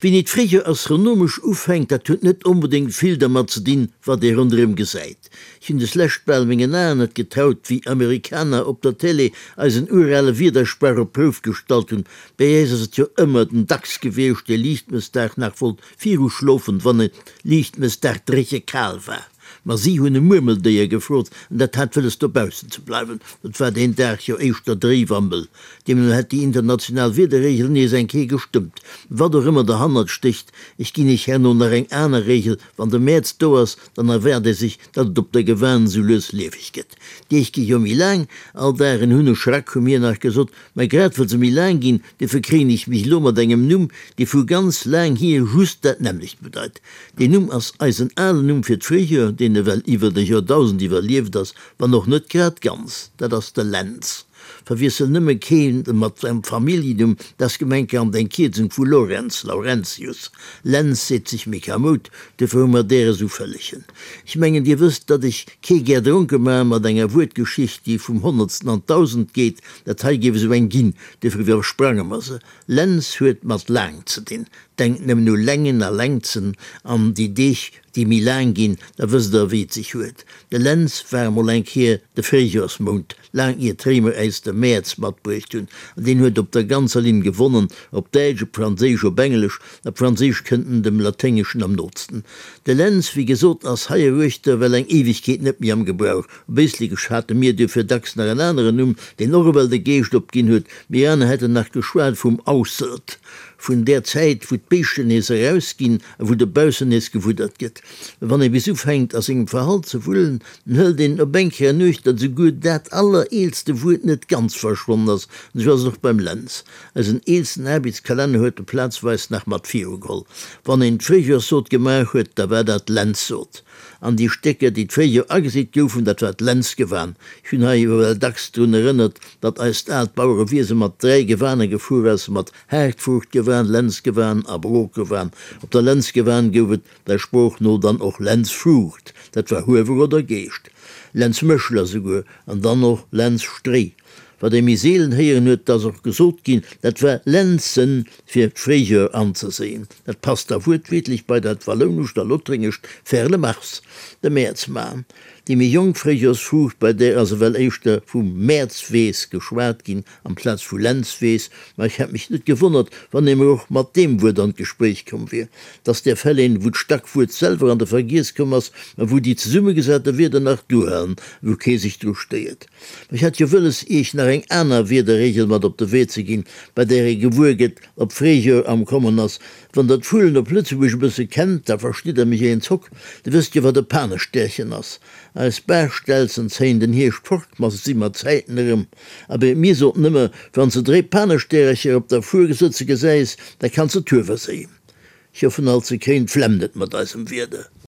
Wéini d'Fréijoer astronomesch ufänkt, dat huet net onbedéngt vill dermat ze dinn, wat ee ronderëm gesäit. Ech hunn deslescht bal mengen Aen net getraut, wéi Amerikaner op der Télé eisen urale Wiedersprach op d'Prouf gestallt hunn. Bäi äis ass et jo ëmmer den Dachs gewiescht, dee Liichtmëssdag nach wollt viruschlofen, wann et Liichtmëssdag dréche kal war. Ma si hunn e Murmeldéier gefrot, an dat hat wëlles dobaussen ze bleiwen. Et war deen Dag jo éischter dréif a mëll. Deemno hätt déi international Wiederreegel nees eng Kéier gestëmmt. Wat och ëmmer derhannert stécht, ech ginn iech herno nach eng aner Reegel, Wann de Mäerz do ass, dann erwaart ee sech, datt et op der Gewan esou lues lieweg gëtt. D'Deeg gi jo méi laang, all Dag en Hunneschrack, hu mir nach gesot. Mä grad well se méi laang ginn, duerfir kréien ech mech elo mat engem Numm, dee vu ganz laang hier just dat nämmlecht bedeit. Deen Numm ass eisen alen Numm fir d'Fréijoer, deen ewell iwwert e Joerdausend iwwerlieft ass, wann och net grad ganz, dat ass de Lentz. Verwiessel nëmme keen mat engem Familljennumm, dat ass gemenkerhand eng Kierzung vu Lorenz, Laurentius. Lenz seet sech méi kamoud, duerfir hu mer där esou vëllegen. Ech mengen, Dir wësst, datt ech kee gär dronke maache mat enger Wuertgeschicht, déi vum Honnertsten an d'Dausend geet. Dat hei géif esou eng ginn, duerfir iwwersprange mer se. Lenz huet mat laang ze dinn. Denkt nëmmen u Längen a Längzen an déi Deeg, déi méi laang ginn, da wësst Der, wéi et sech huet. De Lenz war emol eng Kéier de Fréijoersmount, laang ier d'Réimer äis de Mäerz matbruecht hunn, an deen huet op der ganzer Linn gewonnen, op Däitsch, op Franséisch, op Englesch. Op Franséisch kënnt en dem Laténgeschen am nootsten. De Lenz, wéi gesot, ass heieruechter well eng Éiwegkeet net méi am Gebrauch. Op Éislekesch hate mir duerfir dacks nach en aneren Numm, deen och ewell de Geescht opginn huet. Mir aner hätten nach geschwat vum Ausselt, vun där Zäit, wou d'Béischten nees erausginn a wou dobaussen nees gewuddert gëtt. Wann ee bis ufänkt, a sengem Verhalt ze wullen, dann hëlt een op eng Kéier an Uecht, datt esouguer dat allereelste Wuert net ganz verschwonnen ass. An esou ass et och beim Lenz. Eisen eelsten Aarbechtskalenner huet e plazweis nach mat virugeholl. Wann een d'Fréijoerssot gemaach huet, da war dat Lenzsot. An déi Stécker, déi d'Fréijoer ageseet goufen, dat war d'Lenzgewan. Ech hunn hei ewell dacks drun erënnert, datt eist aalt Bauerewiese mat 3 Gewane gefuer ass, mat Haartfruuchtgewan, Lenzgewan a Brokgewan. Op der Lenzgewan gouf et der Sprooch no dann och Lenzfruucht, dat war Huewer oder Geescht, Lenzmëschler souguer, an dann och Lenzstréi. Wat ee méi seelen héieren huet, 't ass och gesot ginn, dat war Lenzen, fir d'Fréijoer anzeséien. Dat passt da wuertwiertlech bei dat wallounescht a lothréngescht faire le mars, de Mäerz man. Déi méi jonk Fréijoersfruucht, bei där ass ewell éischter vum Mäerzweess geschwat ginn, amplaz vu Lenzweess, ma ech hätt mech net gewonnert, wann ee mer och mat deem Wuert an d'Gespréich komm wier. 't ass där Fäll een, wou d'Stackwuert selwer an de Vergiess komm ass, ma wou déi zesummegesate Wierder nach duerhalen, wou kee sech dru stéiert. Ma ech hat jo wëlles, iech nach eng aner Wierderregel mat op de Wee ze ginn, bei där ee gewuer gëtt, ob Fréijoer am Kommen ass. Wann der d'Vullen op Lëtzebuerg e bësse kennt, da verstitt der mech een Zock. Dir wësst jo, wat e Panestäerchen ass. Eis Baachstelzen zéien den Hierscht fort, ma se si mat Zäiten erëm. Abee, mir soten ëmmer, Wann s de dréi Panestäercher op der Fuer sëtze gesäis, da kanns de d'Huewer séien. Ech hoffen alt, se kréien d'Flemm net mat eisem Wieder.